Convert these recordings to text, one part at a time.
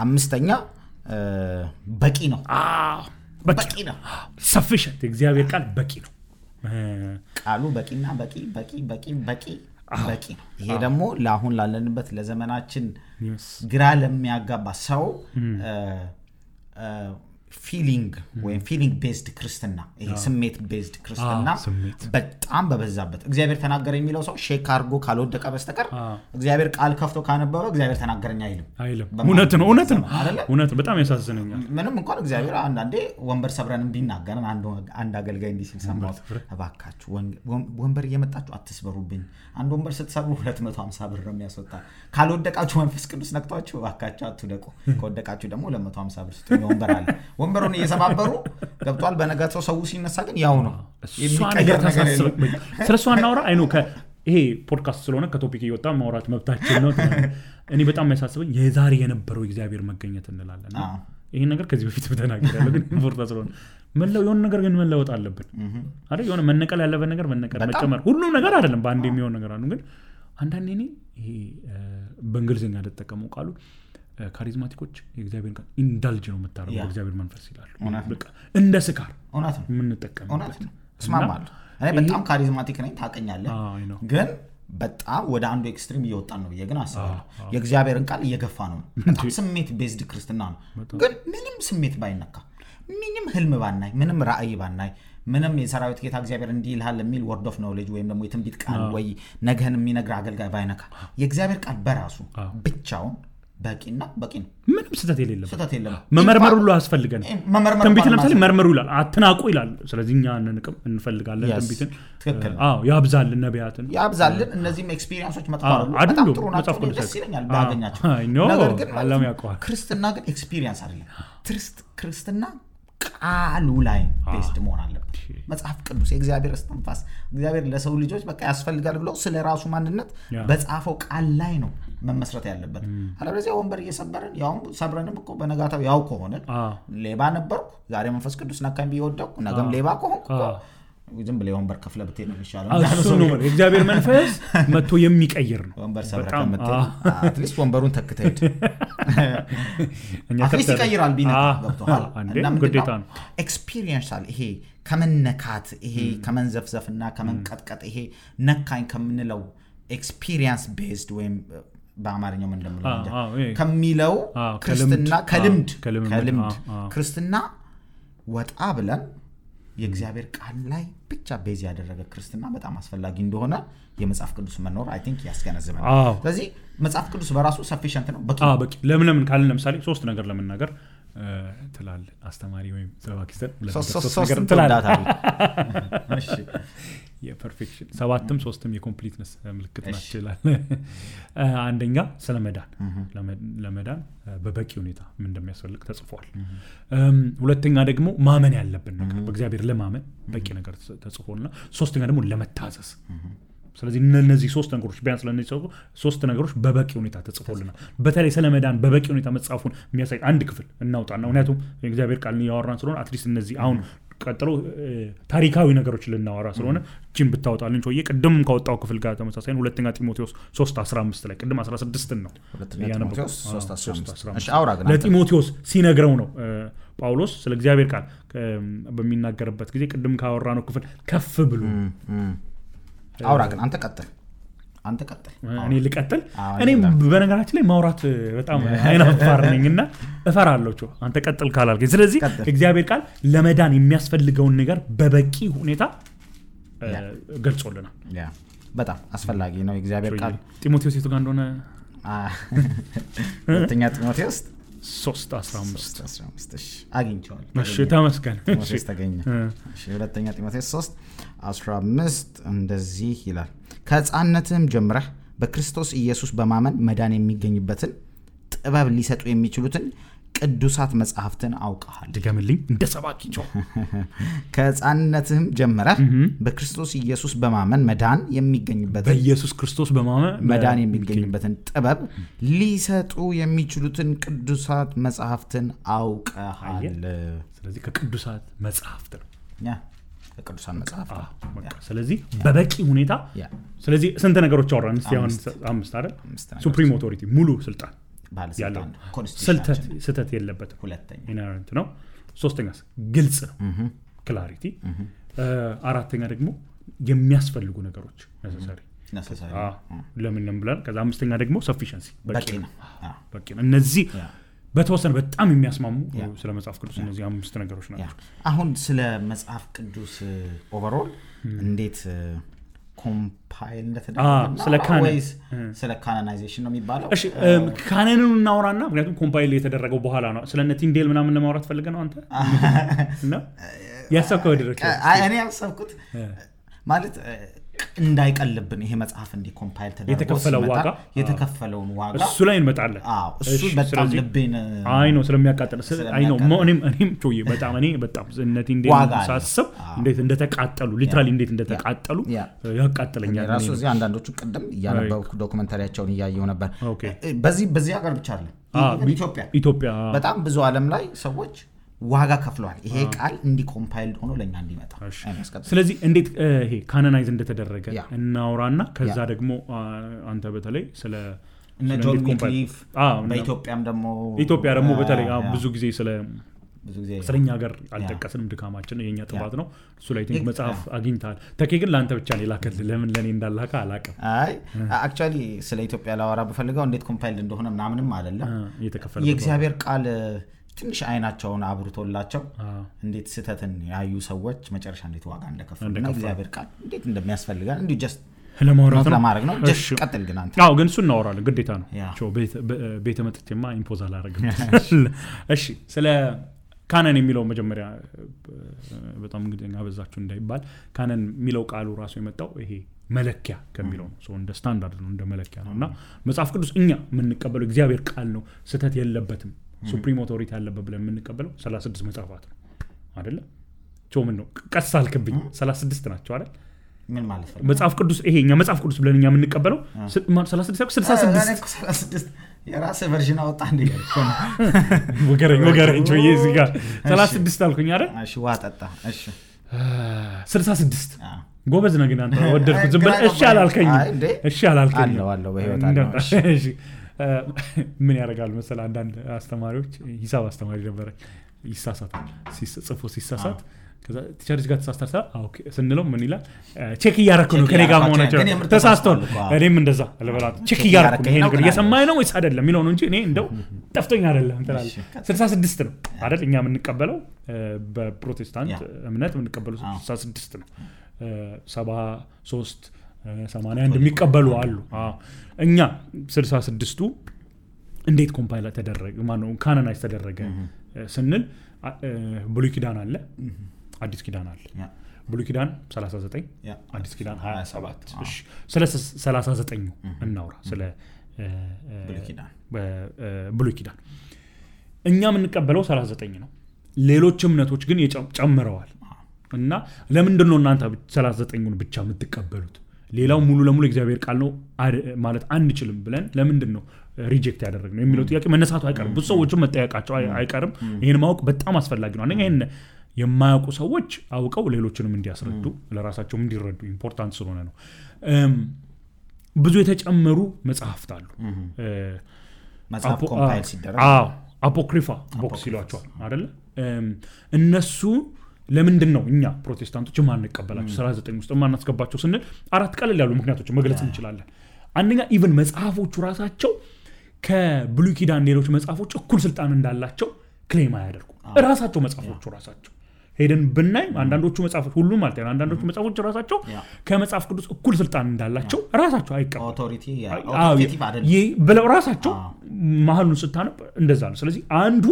አምስተኛ በቂ ነው በቂ ነው sufficient እግዚአብሔር ቃል በቂ ነው ቃሉ በቂና በቂ ነው ይሄ ደግሞ ለአሁን ላለንበት ለዘመናችን ግራ ለሚያጋባ ሰው feeling ወይ feeling based ክርስትና ይሄ ስሜት based ክርስትና በጣም በበዛበት እግዚአብሔር ተናገረ የሚለው ሰው ሼክ አርጎ ካልወደቀ በስተቀር እግዚአብሔር ቃል ከፍቶ ካነበበ እግዚአብሔር ተናገረኝ አይልም እውነት ነው በጣም ያሳዝነኛል ምንም እንኳን እግዚአብሔር አንዳንዴ ወንበር ሰብረን ቢናገረን አንድ አገልጋይ እንዲህ ሲል ሰማሁት እባካችሁ ወንበር እየመጣችሁ አትስበሩብኝ አንድ ወንበር ስትሰብሩ 250 ብር ነው የሚያስወጣ ካልወደቃችሁ መንፈስ ቅዱስ ነክቷችሁ እባካችሁ አትውደቁ ከወደቃችሁ ደግሞ 250 ብር ስትሆኑ ወንበር አለ ወንበሩን እየሰባበሩ ገብቷል በነጋታው ሰው ሲነሳ ግን ያው ነው የሚቀየር ነገር የለም ስለሱ አናወራ አይ ነው ይሄ ፖድካስት ስለሆነ ከቶፒክ እየወጣ ማውራት መብታችን ነው እኔ በጣም የሚያሳስበኝ የዛሬ የነበረው እግዚአብሔር መገኘት እንላለን ይሄን ነገር ከዚህ በፊት በተናገራለሁ ግን ፖድካስት ስለሆነ የሆነ ነገር ግን መለወጥ አለብን አይደል የሆነ መነቀል ያለበት ነገር መጨመር ሁሉ ነገር አይደለም በአንድ የሚሆን ነገር አሉ ግን አንዳንዴ ይሄ በእንግሊዝኛ ተጠቀመው ቃሉ ካሪዝማቲኮች የእግዚአብሔር ቃል ኢንዳልጅ ነው መታረው በእግዚአብሔር መንፈስ ይላሉ በቃ እንደ ስካር እውነት ነው የምንጠቀምበት እስማማለሁ እኔ በጣም ካሪዝማቲክ ነኝ ታቀኛለህ ግን በጣም ወደ አንዱ ኤክስትሪም እየወጣን ነው ግን አስባለሁ የእግዚአብሔርን ቃል እየገፋ ነው በጣም ስሜት ቤዝድ ክርስትና ነው ግን ምንም ስሜት ባይነካ ምንም ህልም ባናይ ምንም ራእይ ባናይ ምንም የሰራዊት ጌታ እግዚአብሔር እንዲህ ይልሃል የሚል ወርድ ኦፍ ኖሌጅ ወይም ደግሞ የትንቢት ቃል ወይ ነገን የሚነግር አገልጋይ ባይነካ የእግዚአብሔር ቃል በራሱ ብቻውን በቂና በቂ ነው ምንም ስተት የለም መመርመር ሁሉ አስፈልገን ትንቢት ለምሳሌ መርመሩ ይላል አትናቁ ይላል ስለዚህ እኛ እንፈልጋለን ትንቢትን ያብዛልን ነቢያትን ያብዛልን እነዚህም ኤክስፒሪየንሶች መጥፋሉ በጣም ጥሩ ናቸው ደስ ይለኛል ባገኛቸው ነገር ግን አላም ያውቀዋል ክርስትና ግን ኤክስፒሪየንስ አይደለም ክርስትና ቃሉ ላይ ቤስድ መሆን አለበት መጽሐፍ ቅዱስ የእግዚአብሔር እስትንፋስ እግዚአብሔር ለሰው ልጆች በቃ ያስፈልጋል ብሎ ስለራሱ ማንነት በጻፈው ቃል ላይ ነው መመስረት ያለበት አለበለዚያ ወንበር እየሰበረን ያው ሰብረንም እኮ በነጋታው ያው ከሆነ ሌባ ነበርኩ ዛሬ መንፈስ ቅዱስ ነካኝ ቢወደቁ ነገም ሌባ ከሆንኩ ዝም ብለ ወንበር ከፍለ ብትሄድ ነው ይሻላል እሱ ነው የእግዚአብሔር መንፈስ መጥቶ የሚቀይር ነው ወንበር ሰብረከ መጥተህ አትሊስት ወንበሩን ተክተህ አትሊስት ይቀይራል ቢነካ ገብቶሃል እና ግዴታ ነው ኤክስፒሪየንሻል ይሄ ከመነካት ይሄ ከመንዘፍዘፍና ከመንቀጥቀጥ ይሄ ነካኝ ከምንለው ኤክስፒሪየንስ ቤዝድ ወይም በአማርኛው ምን እንደምለው ከሚለው ክርስትና ከልምድ ክርስትና ወጣ ብለን የእግዚአብሔር ቃል ላይ ብቻ ቤዝ ያደረገ ክርስትና በጣም አስፈላጊ እንደሆነ የመጽሐፍ ቅዱስ መኖር አይ ቲንክ ያስገነዝበናል ስለዚህ መጽሐፍ ቅዱስ በራሱ ሰፊሽንት ነው በቂ ለምን ካልን ለምሳሌ ሶስት ነገር ለመናገር ትላል አስተማሪ ወይም ሰባኪስተር ሶስት ነገር ትላል እሺ የፐርፌክሽን ሰባትም ሶስትም የኮምፕሊትነስ ምልክት ናቸው ይላል አንደኛ ለመዳን በበቂ ሁኔታ ምን እንደሚያስፈልግ ተጽፏል ሁለተኛ ደግሞ ማመን ያለብን ነገር በእግዚአብሔር ለማመን በቂ ነገር ተጽፎልና ሶስተኛ ደግሞ ለመታዘዝ ስለዚህ እነዚህ ሶስት ነገሮች ቢያንስ ለነዚህ ሶስት ነገሮች በበቂ ሁኔታ ተጽፎልናል በተለይ ስለመዳን በበቂ ሁኔታ መጻፉን የሚያሳይ አንድ ክፍል እናውጣና ምክንያቱም የእግዚአብሔር ቃል ያወራን ስለሆነ አትሊስት እነዚህ አሁን ቀጥሎ ታሪካዊ ነገሮች ልናወራ ስለሆነ ጂም ብታወጣልን ጮዬ ቅድም ካወጣው ክፍል ጋር ተመሳሳይ ሁለተኛ ጢሞቴዎስ 3:15 ላይ ቅድም 16 ነው ጢሞቴዎስ 3:15 እሺ አውራ ግን ለጢሞቴዎስ ሲነግረው ነው ጳውሎስ ስለ እግዚአብሔር ቃል በሚናገርበት ጊዜ ቅድም ካወራነው ክፍል ከፍ ብሎ አውራ ግን አንተ ቀጥል እኔ ልቀጥል እኔ በነገራችን ላይ ማውራት በጣም አይናፋር ነኝና እፈራለሁ አንተ ቀጥል ካላልከኝ ስለዚህ እግዚአብሔር ቃል ለመዳን የሚያስፈልገውን ነገር በበቂ ሁኔታ ገልጾልናል በጣም አስፈላጊ ነው እግዚአብሔር ቃል ጢሞቴዎስ የቱ ጋር እንደሆነ ሁለተኛ ጢሞቴዎስ 3:15 እሺ አግኝቻለሁ እሺ ተመስገን እሺ ተገኘ እሺ ሁለተኛ ጢሞቴዎስ 3:15 እንደዚህ ይላል ከሕፃንነትም ጀምረህ በክርስቶስ ኢየሱስ በማመን መዳን የሚገኝበትን ጥበብ ሊሰጡ የሚችሉትን ቅዱሳት መጻሕፍትን አውቀሃል ድገምልኝ እንደ ሰባኪቸው ከሕፃንነትም ጀምረህ በክርስቶስ ኢየሱስ በማመን መዳን የሚገኝበትን በኢየሱስ ክርስቶስ በማመን መዳን የሚገኝበትን ጥበብ ሊሰጡ የሚችሉትን ቅዱሳት መጻሕፍትን አውቀሃል ስለዚህ ከቅዱሳት መጻሕፍት ነው ከቅዱሳት መጻሕፍት ስለዚህ በበቂ ሁኔታ ስለዚህ ስንት ነገሮች አወራን እስቲ አሁን 5 አይደል ሱፕሪም ኦቶሪቲ ሙሉ ስልጣን ባለስልጣን ስህተት የለበትም ሁለተኛ ኢነረንት ነው ሶስተኛስ ግልጽ ነው ክላሪቲ አራተኛ ደግሞ የሚያስፈልጉ ነገሮች necessary ለምን ብለን ከዛ አምስተኛ ደግሞ sufficiency በቂ ነው እነዚህ በተወሰነ በጣም የሚያስማሙ ስለ መጽሐፍ ቅዱስ እነዚህ አምስት ነገሮች ናቸው አሁን ስለ መጽሐፍ ቅዱስ ኦቨርኦል እንዴት ኮምፓይል እንደተደረገ ስለ ካናናይዜሽን ነው የሚባለው እሺ ካናንን እናወራና ምክንያቱም ኮምፓይል የተደረገው በኋላ ነው ስለነ ቲንዴል ምናምን ለማውራት ፈልገህ ነው አንተ እና ያሰብከው ድረስ እኔ ያሰብኩት ማለት እንዳይቀልብን ይሄ መጽሐፍ እንዲ ኮምፓይል ተደርጎ የተከፈለውን ዋጋ እሱ ላይ እንመጣለን እሱ በጣም ልቤን አይ ነው ስለሚያቃጥል አይ ነው እኔም ጮዬ በጣም እኔ በጣም እነቲ እንደሳስብ እንዴት እንደተቃጠሉ ሊትራሊ እንዴት እንደተቃጠሉ ያቃጥለኛል ራሱ እዚህ አንዳንዶቹ ቀደም ያነበብኩ ዶክመንታሪያቸውን ያያየው ነበር በዚህ ሀገር ብቻ አይደለም ኢትዮጵያ በጣም ብዙ ዓለም ላይ ሰዎች ዋጋ ከፍለዋል ይሄ ቃል እንዲ ኮምፓይልድ ሆኖ ለኛ እንዲመጣ ስለዚህ እንዴት ይሄ ካናናይዝ እንደተደረገ እናውራና ከዛ ደግሞ አንተ በተለይ ስለ ጆን ዊክሊፍ በኢትዮጵያም ደግሞ በተለይ ብዙ ጊዜ ስለኛ ሀገር አልጠቀስንም ድካማችን የኛ ጥባት ነው እሱ ላይ ቲንክ መጽሐፍ አግኝታል ተኬ ግን ላንተ ብቻ ነው ላከል ለምን ለኔ እንዳላካ አላቀም አይ አክቹአሊ ስለ ኢትዮጵያ ላወራ በፈልገው እንዴት ኮምፓይልድ እንደሆነ ምናምንም አይደለም የእግዚአብሔር ቃል ትንሽ አይናቸውን አብርቶላቸው እንዴት ስተትን ያዩ ሰዎች መጨረሻ እንዴት ዋጋ እንደከፈሉና እግዚአብሔር ቃል እንዴት እንደሚያስፈልጋል እንዴ ጀስት ለማድረግ ነው ጀስት ቀጥል ግን አንተ ግን እሱ እናወራለን ግዴታ ነው ቾ ቤተ መጥቼማ ኢምፖዝ አላረግም እሺ ስለ ካናን የሚለው መጀመሪያ በጣም እንግዲህ አበዛችሁ እንዳይባል ካናን የሚለው ቃሉ ራሱ የመጣው ይሄ መለኪያ ከሚለው ነው ሶ እንደ ስታንዳርድ ነው እንደ መለኪያ ነውና መጽሐፍ ቅዱስ እኛ የምንቀበለው እግዚአብሔር ቃል ነው ስተት የለበትም ሱፕሪም ኦቶሪቲ ያለበት ብለን የምንቀበለው 36 መጽሐፋት ነው አይደለ ምን ነው ቀስ አልክብኝ 36 ናቸው አይደል ምን ማለት ነው መጽሐፍ ቅዱስ ይሄኛ መጽሐፍ ቅዱስ ብለን እኛ የምንቀበለው 66 የራስ ቨርዥን አወጣ እንዴ ወገረኝ ጆዬ እዚህ ጋር 36 አልኩኝ አይደል እሺ ዋጣጣ እሺ 66 ጎበዝ ነህ ግን አንተ ወደድኩት ዝም ብለህ እሺ አላልከኝ አለው በህይወት አለው እሺ ምን ያደርጋሉ መሰለህ አንዳንድ አስተማሪዎች ሂሳብ አስተማሪ ነበር ይሳሳታል ሲሳሳት ከዛ ቲቸርስ ጋር ተሳስተታ ኦኬ ስንለው ምን ይላል ቼክ እያረኩ ነው ከኔ ጋር መሆናቸው ተሳስተው እኔም እንደዛ አለበላት ቼክ እያረኩ ነው ይሄ ነገር እየሰማኝ ነው ወይስ አይደለም የሚለው ነው እንጂ እኔ እንደው ጠፍቶኝ አይደለም እንተላል 66 ነው አይደል እኛ የምንቀበለው በፕሮቴስታንት እምነት የምንቀበለው 66 ነው 73 81 የሚቀበሉ አሉ እኛ 66ቱ እንዴት ኮምፓይል ተደረገ ማነው ካናናይዝ ተደረገ ስንል ብሉይ ኪዳን አለ አዲስ ኪዳን አለ ብሉይ ኪዳን 39 አዲስ ኪዳን 27 እሺ ስለ 39 እናውራ ስለ ብሉይ ኪዳን እኛ የምንቀበለው 39 ነው ሌሎች እምነቶች ግን ጨምረዋል እና ለምንድን ነው እናንተ 39ን ብቻ የምትቀበሉት ሌላው ሙሉ ለሙሉ እግዚአብሔር ቃል ነው ማለት አንችልም ብለን ለምንድን ነው ሪጀክት ያደረግነው የሚለው ጥያቄ መነሳቱ አይቀርም ብዙ ሰዎችም መጠየቃቸው አይቀርም ይሄን ማወቅ በጣም አስፈላጊ ነው አንደኛ ይሄን የማያውቁ ሰዎች አውቀው ሌሎችንም እንዲያስረዱ ለራሳቸው እንዲረዱ ኢምፖርታንት ስለሆነ ነው ብዙ የተጨመሩ መጽሐፍት አሉ መጽሐፍ ኮምፓይል ሲደረግ አፖክሪፋ ቦክስ ይሏቸዋል አይደል እነሱ ለምንድን ነው እኛ ፕሮቴስታንቶች ማንቀበላቸው 39 ውስጥ ማናስገባቸው ስንል አራት ቀለል ያሉ ምክንያቶች መግለጽ እንችላለን አንደኛ ኢቭን መጽሐፎቹ ራሳቸው ከብሉይ ኪዳን ሌሎች መጽሐፎች እኩል ስልጣን እንዳላቸው ክሌም ያደርጉ ራሳቸው መጽሐፎቹ ራሳቸው ሄደን ብናይ አንዳንዶቹ መጽሐፎች ሁሉ ማለት ነው አንዳንዶቹ መጽሐፎች ራሳቸው ከመጽሐፍ ቅዱስ እኩል ስልጣን እንዳላቸው ራሳቸው አይቀበሉ ኦቶሪቲ አይደለም ብለው ራሳቸው ማህሉን ስታነብ እንደዛ ነው ስለዚህ አንዱ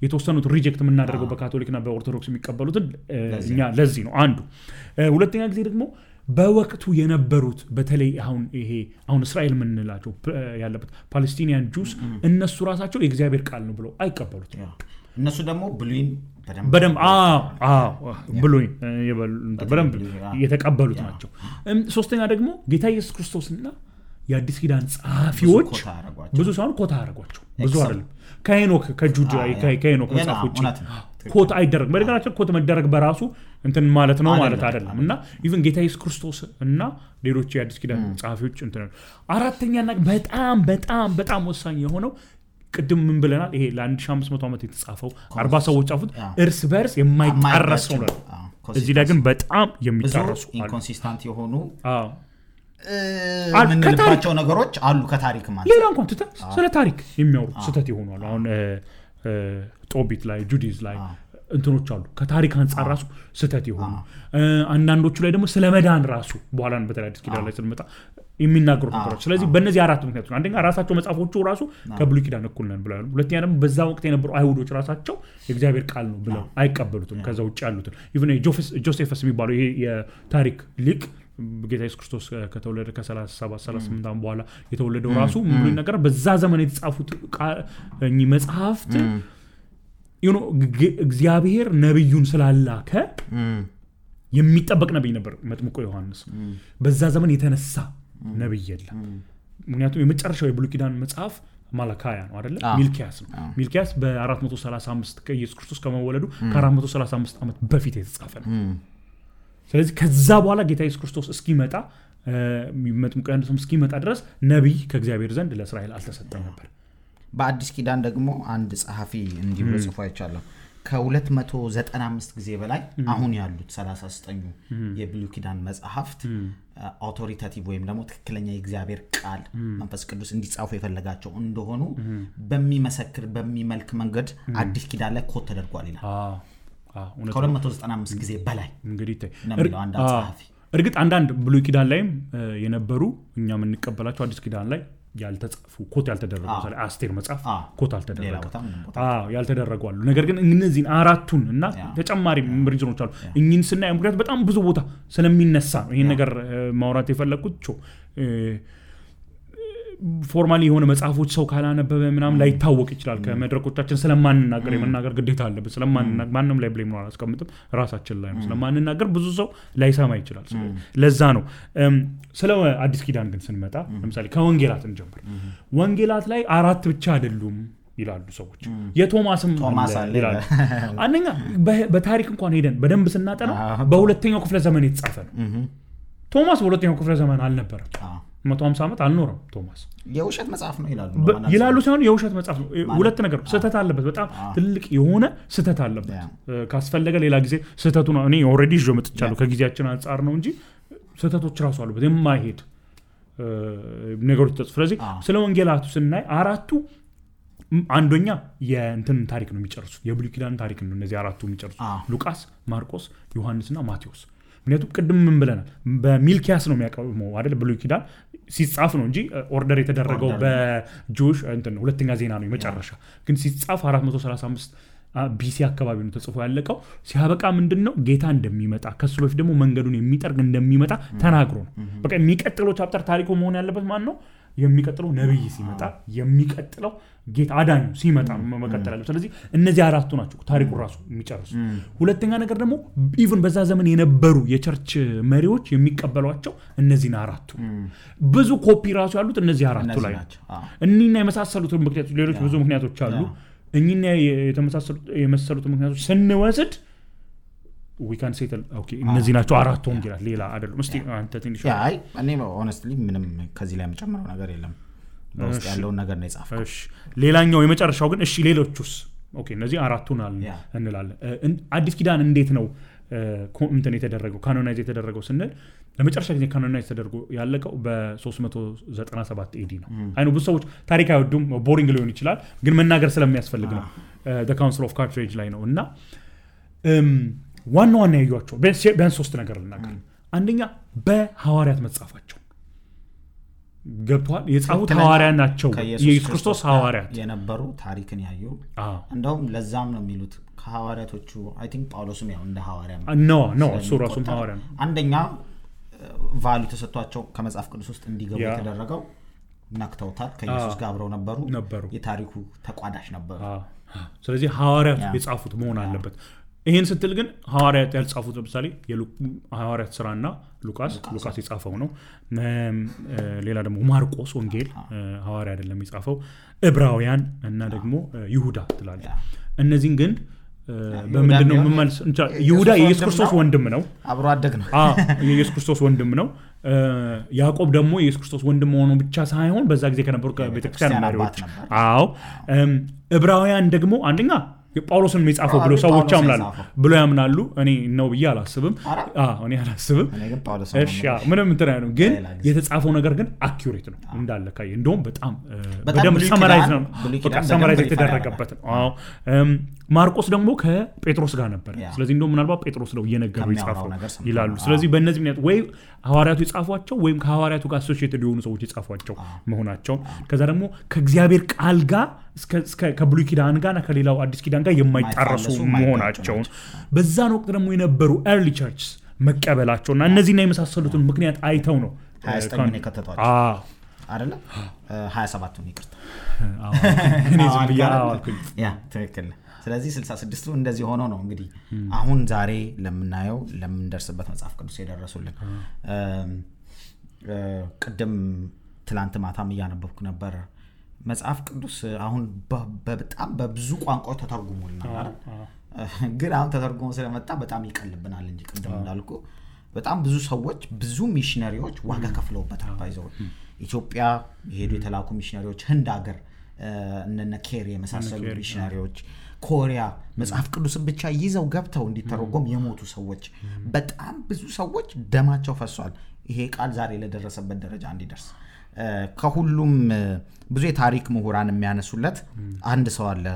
የተወሰኑት ሪጀክት የምናደርገው በካቶሊክና በኦርቶዶክስ የሚቀበሉትን እኛ ለዚህ ነው አንዱ ሁለተኛ ጊዜ ደግሞ በወቅቱ የነበሩት በተለይ አሁን እስራኤል ምንላቸው ያለበት ፓለስቲኒያን ጁስ እነሱ ራሳቸው የእግዚአብሔር ቃል ነው ብለው አይቀበሉት እነሱ ደግሞ ብሉይን በደም ብሉይን በደም የተቀበሉት ናቸው ሶስተኛ ደግሞ ጌታ ኢየሱስ ክርስቶስና የአዲስ ኪዳን ጻፊዎች ብዙ ሳይሆን ኮታ አረጋቸው ብዙ አይደለም ከሄኖክ ከጁዳ ከሄኖክ መጽሐፎች ኮት አይደረግ በደጋቸው ኮት መደረግ በራሱ እንትን ማለት ነው ማለት አይደለም እና ኢቭን ጌታ ኢየሱስ ክርስቶስ እና ሌሎች የአዲስ ኪዳን ጻፊዎች እንትን አራተኛና በጣም ወሳኝ የሆነው ቅድም ምን ብለናል ይሄ ለ1500 ዓመት የተጻፈው 40 ሰዎች ጻፉት እርስ በርስ የማይጣረስ ነው እዚህ ላይ ግን በጣም የሚጣረሱ ኢንኮንሲስተንት የሆኑ ምንልባቸው ነገሮች አሉ ከታሪክ ማለት ሌላ እንኳን ስለ ታሪክ የሚያወሩ ስተት ይሆናሉ አሁን ጦቢት ላይ ጁዲዝ ላይ እንትኖች አሉ ከታሪክ አንፃር ራሱ ስተት ይሆኑ አንዳንዶቹ ላይ ደግሞ ስለ መዳን ራሱ በኋላ በተለይ አዲስ ኪዳን ላይ ስለመጣ የሚናገሩ ነገሮች ስለዚህ በእነዚህ አራት ምክንያቶች ነው አንደኛ ራሳቸው መጽሐፎቹ ራሱ ከብሉይ ኪዳን እኩል ነን ብለው ሁለተኛ ደግሞ በዛ ወቅት የነበሩ አይሁዶች ራሳቸው የእግዚአብሔር ቃል ነው ብለው አይቀበሉትም ከዛ ውጭ ያሉትን ኢቭን ጆሴፈስ የሚባለው ይሄ የታሪክ ሊቅ ጌታ ኢየሱስ ክርስቶስ ከተወለደ ከ37 38 ዓመት በኋላ የተወለደው ራሱ ሙሉ ነገር በዛ ዘመን የተጻፉት መጽሐፍት እግዚአብሔር ነብዩን ስላላከ የሚጠበቅ ነብይ ነበር መጥምቁ ዮሐንስ በዛ ዘመን የተነሳ ነብይ የለም ምክንያቱም የመጨረሻው የብሉይ ኪዳን መጽሐፍ ማላካያ ነው አይደለ ሚልኪያስ ነው ሚልኪያስ በ435 ከኢየሱስ ክርስቶስ ከመወለዱ ከ435 ዓመት በፊት የተጻፈ ነው ስለዚህ ከዛ በኋላ ጌታ ኢየሱስ ክርስቶስ እስኪመጣ መጥምቁ ዮሐንስ እስኪመጣ ድረስ ነብይ ከእግዚአብሔር ዘንድ ለእስራኤል አልተሰጠም ነበር በአዲስ ኪዳን ደግሞ አንድ ጸሐፊ እንዲሁ ጽፎ አይቻለሁ ከ295 ጊዜ በላይ አሁን ያሉት 39 የብሉይ ኪዳን መጽሐፍት አውቶሪታቲቭ ወይም ደግሞ ትክክለኛ የእግዚአብሔር ቃል መንፈስ ቅዱስ እንዲጻፉ የፈለጋቸው እንደሆኑ በሚመሰክር በሚመልክ መንገድ አዲስ ኪዳን ላይ ኮት ተደርጓል ይላል ከ295 ጊዜ በላይ እንግዲህ አንድ ጸሐፊ እርግጥ አንዳንድ ብሉይ ኪዳን ላይም የነበሩ እኛ የምንቀበላቸው አዲስ ኪዳን ላይ ያልተጻፉ ኮት ያልተደረጉ ማለት አስቴር መጽሐፍ ኮት አልተደረገ ያልተደረጉ አሉ ነገር ግን እነዚህን አራቱን እና ተጨማሪ ሪጅኖች አሉ እኚህን ስናይ ምክንያቱም በጣም ብዙ ቦታ ስለሚነሳ ነው ይሄን ነገር ማውራት የፈለኩት ፎርማሊ የሆነ መጽሐፎች ሰው ካላነበበ ምናምን ላይ ታወቅ ይችላል ከመድረኮቻችን ስለማንናገር የመናገር ግዴታ አለበት ስለማንናገር ማንንም ላይ ብሌም ነው አላስቀምጥም ራሳችን ላይ ነው ስለማንናገር ብዙ ሰው ላይሰማ ይችላል ለዛ ነው ስለ አዲስ ኪዳን ግን ስንመጣ ለምሳሌ ከወንጌላት እንጀምር ወንጌላት ላይ አራት ብቻ አይደሉም ይላሉ ሰዎች የቶማስም ይላሉ አንደኛ በታሪክ እንኳን ሄደን በደንብ ስናጠና በሁለተኛው ክፍለ ዘመን የተጻፈ ነው ቶማስ በሁለተኛው ክፍለ ዘመን አልነበረም 150 ዓመት አልኖረም ቶማስ የውሸት መጽሐፍ ነው ይላሉ ሳይሆን የውሸት መጽሐፍ ነው ሁለት ነገር ስተት አለበት በጣም ትልቅ የሆነ ስተት አለበት ካስፈለገ ሌላ ጊዜ ስተቱ ነው እኔ ኦሬዲ ጆ መጥቻለሁ ከጊዜያችን አንፃር ነው እንጂ ስተቶች ራሱ አሉበት የማይሄድ ነገሮች ተጽፈው ስለዚህ ስለ ወንጌላቱ ስናይ አራቱ አንደኛ የእንትን ታሪክ ነው የሚጨርሱት የብሉይ ኪዳን ታሪክ ነው እነዚህ አራቱ የሚጨርሱት ሉቃስ ማርቆስ ዮሐንስና ማቴዎስ ምክንያቱም ቅድም ምን ብለናል በሚልኪያስ ነው የሚያቀርበው አይደል ብሉይ ኪዳን ሲጻፍ ነው እንጂ ኦርደር የተደረገው በጆሽ እንትን ሁለተኛ ዜና ነው የመጨረሻ ግን ሲጻፍ 435 ቢሲ አካባቢ ነው ተጽፎ ያለቀው ሲያበቃ ምንድነው ጌታ እንደሚመጣ ከሱ በፊት ደግሞ መንገዱን የሚጠርግ እንደሚመጣ ተናግሮ ነው በቃ የሚቀጥለው ቻፕተር ታሪኩ መሆን ያለበት ማን ነው የሚቀጥለው ነብይ ሲመጣ የሚቀጥለው ጌታ አዳኙ ሲመጣ መቀጠል አለው ስለዚህ እነዚህ አራቱ ናቸው ታሪኩ ራሱ የሚጨርሱ ሁለተኛ ነገር ደግሞ ኢቭን በዛ ዘመን የነበሩ የቸርች መሪዎች የሚቀበሏቸው እነዚህን አራቱ ብዙ ኮፒ ራሱ ያሉት እነዚህ አራቱ ላይ ናቸው እኒና የመሳሰሉት ምክንያቶች ሌሎች ብዙ ምክንያቶች አሉ እኒና የመሳሰሉት ምክንያቶች ስንወስድ we can say okay እነዚህ ናቸው አራቱ ወንጌላት ሌላ አይደለም እስቲ አንተ ትንሽ አይ እኔ honestly ምንም ከዚህ ላይ መጨመረው ነገር የለም በውስጥ ያለው ነገር ነው የጻፈው እሺ ሌላኛው የመጨረሻው ግን እሺ ሌሎቹስ ኦኬ እነዚህ አራቱን እንላለን አዲስ ኪዳን እንዴት ነው እንትን የተደረገው ካኖናይዝ የተደረገው ስንል ለመጨረሻ ጊዜ ካኖናይዝ ተደርጎ ያለቀው በ397 ኤዲ ነው አይኑ ብዙ ሰዎች ታሪክ አይወዱም ቦሪንግ ሊሆን ይችላል ግን መናገር ስለሚያስፈልግ ነው the council of carthage ላይ ነውና ዋና ያዩዋቸው ቢያንስ ሶስት ነገር ልናገር አንደኛ በሐዋርያት መጻፋቸው ገብቷል የጻፉት ሐዋርያት ናቸው የኢየሱስ ክርስቶስ ሐዋርያት የነበሩ ታሪክን ያዩ እንደውም ለዛም ነው የሚሉት ከሐዋርያቶቹ አይ ቲንክ ጳውሎስም ያው እንደ ሐዋርያ ነው እሱ ራሱም ሐዋርያ ነው አንደኛ ቫልዩ ተሰጥቷቸው ከመጽሐፍ ቅዱስ ውስጥ እንዲገቡ የተደረገው ናክተውታል ከኢየሱስ ጋር አብረው ነበሩ የታሪኩ ተቋዳሽ ነበሩ ስለዚህ ሐዋርያት የጻፉት መሆን አለበት ይሄን ስትል ግን ሐዋርያት ያልጻፉት ለምሳሌ የሐዋርያት ሥራና ሉቃስ የጻፈው ነው ሌላ ደግሞ ማርቆስ ወንጌል ሐዋርያ አይደለም የጻፈው ዕብራውያን እና ደግሞ ይሁዳ ትላለች እነዚህን ግን በምንድነው መመልስ ይሁዳ የኢየሱስ ክርስቶስ ወንድም ነው አብሮ አደግ ነው የኢየሱስ ክርስቶስ ወንድም ነው ያዕቆብ ደግሞ የኢየሱስ ክርስቶስ ወንድም ሆኖ ብቻ ሳይሆን በዛ ጊዜ ከነበሩ ከቤተክርስቲያን መሪዎች ዕብራውያን ደግሞ አንደኛ ጳውሎስን የሚጻፈው ብሎ ሰዎች ያምናሉ እኔ ነው ብዬ አላስብም እኔ አላስብም እሺ ምንም እንትን አይደለም ግን የተጻፈው ነገር ግን አኩሬት ነው እንዳለ ካይ እንደውም በጣም በደም ሰማራይዝ ነው ሰማራይዝ የተደረገበት ነው ማርቆስ ደግሞ ከጴጥሮስ ጋር ነበር ስለዚህ እንደውም ምናልባት ጴጥሮስ ነው እየነገሩ ይጻፈው ይላሉ ስለዚህ በእነዚህ ምክንያት ወይ ሐዋርያቱ ይጻፏቸው ወይም ከሐዋርያቱ ጋር አሶሺየትድ የሆኑ ሰዎች ይጻፏቸው መሆናቸው ከዛ ደግሞ ከእግዚአብሔር ቃል ጋር እስከ ከብሉይ ኪዳን ጋርና ከሌላው አዲስ ኪዳን ጋር የማይጣረሱ መሆናቸው በዛን ወቅት ደግሞ የነበሩ early churches መቀበላቸውና እነዚህና የመሳሰሉትን ምክንያት አይተው ነው 29 ነው ከተቷቸው አይደለ 27 ነው ይቅርታ እኔ ዝም ብያለሁ ያ ትክክል ስለዚህ 66ቱ እንደዚህ ሆኖ ነው እንግዲህ አሁን ዛሬ ለምናየው ለምንደርስበት መጽሐፍ ቅዱስ የደረሱልን ቅድም ትላንት ማታም ያነበብኩ ነበር መጽሐፍ ቅዱስ አሁን በጣም በብዙ ቋንቋዎች ተተርጉሞልናል ግን አሁን ተተርጉሞ ስለመጣ በጣም ይቀልብናል እንጂ ቅድም እንዳልኩ በጣም ብዙ ሰዎች ብዙ ሚሽነሪዎች ዋጋ ከፍለውበታል ባይዘው ኢትዮጵያ የሄዱ የተላኩ ሚሽነሪዎች ህንድ ሀገር እነነ ኬሪ የመሳሰሉ ሚሽነሪዎች ኮሪያ መጽሐፍ ቅዱስን ብቻ ይዘው ገብተው እንዲተረጎም የሞቱ ሰዎች በጣም ብዙ ሰዎች ደማቸው ፈሷል ይሄ ቃል ዛሬ ለደረሰበት ደረጃ እንዲደርስ ከሁሉም ብዙ የታሪክ ምሁራን የሚያነሱለት አንድ ሰው አለ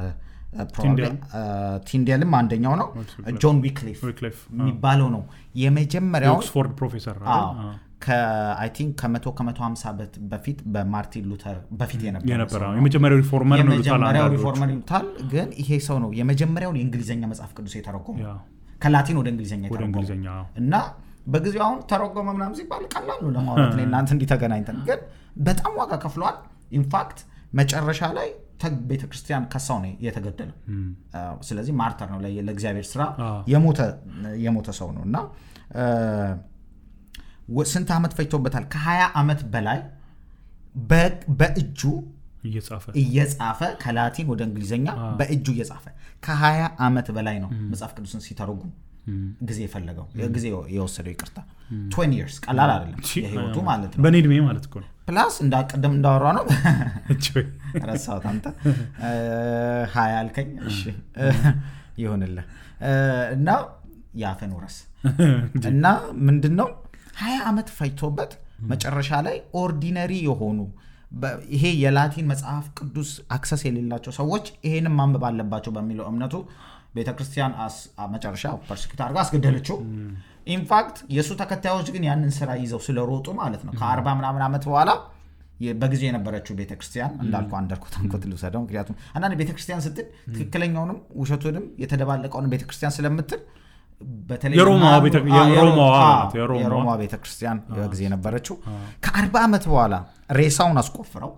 ቲንዴልም አንደኛው ነው ጆን ዊክሊፍ የሚባለው ነው የመጀመሪያው ኦክስፎርድ ፕሮፌሰር ከአይ ቲንክ ከ150 በፊት በማርቲን ሉተር በፊት የነበረው የመጀመሪያው ሪፎርመር ነው ይሉታል ግን ይሄ ሰው ነው የመጀመሪያው የእንግሊዘኛ መጽሐፍ ቅዱስ የተረጎመው ከላቲን ወደ እንግሊዘኛ የተረጎመው እና በጊዜው አሁን ተረጎመ ምናምን ሲባል ቀላል ነው ለማውራት ነው እናንተ እንዲተገናኝተን ግን በጣም ዋጋ ከፍሏል ኢንፋክት መጨረሻ ላይ ቤተክርስቲያን ከሳው ነው የተገደለው ስለዚህ ማርተር ነው ለእግዚአብሔር ስራ የሞተ ሰው ነውና ስንት አመት ፈጅቶበታል ከ20 አመት በላይ በእጁ እየጻፈ ከላቲን ወደ እንግሊዘኛ በእጁ እየጻፈ ከ20 አመት በላይ ነው መጽሐፍ ቅዱስን ሲተረጉም ጊዜ የፈለገው ጊዜ የወሰደው ይቅርታ 20 years ቀላል አይደለም የህይወቱ ማለት ነው በኔድሜ ማለት እኮ ነው ፕላስ እንዳቀደም እንዳወራ ነው ረሳው ታንተ 20 አልከኝ እሺ ይሆንልህ እና ያፈን ወረስ እና ምንድነው 20 አመት ፈጅቶበት መጨረሻ ላይ ኦርዲነሪ የሆኑ ይሄ የላቲን መጽሐፍ ቅዱስ አክሰስ የሌላቸው ሰዎች ይሄንን ማንበብ አለባቸው በሚለው እምነቱ ቤተክርስቲያን መጨረሻ ፐርሲኪዩት አድርጋ አስገደለችው ኢንፋክት የሱ ተከታዮች ግን ያንን ስራ ይዘው ስለሮጡ ማለት ነው ከ40 ምናምን አመት በኋላ በጊዜ የነበረችው ቤተክርስቲያን እንዳልኩ አንደርኮት ልውሰደው ምክንያቱም አንዳንድ ቤተክርስቲያን ስትል ትክክለኛውንም ውሸቱንም የተደባለቀውን ቤተክርስቲያን ስለምትል በተለይ የሮማ ቤተክርስቲያን በጊዜ የነበረችው ከ40 አመት በኋላ ሬሳውን አስቆፍረው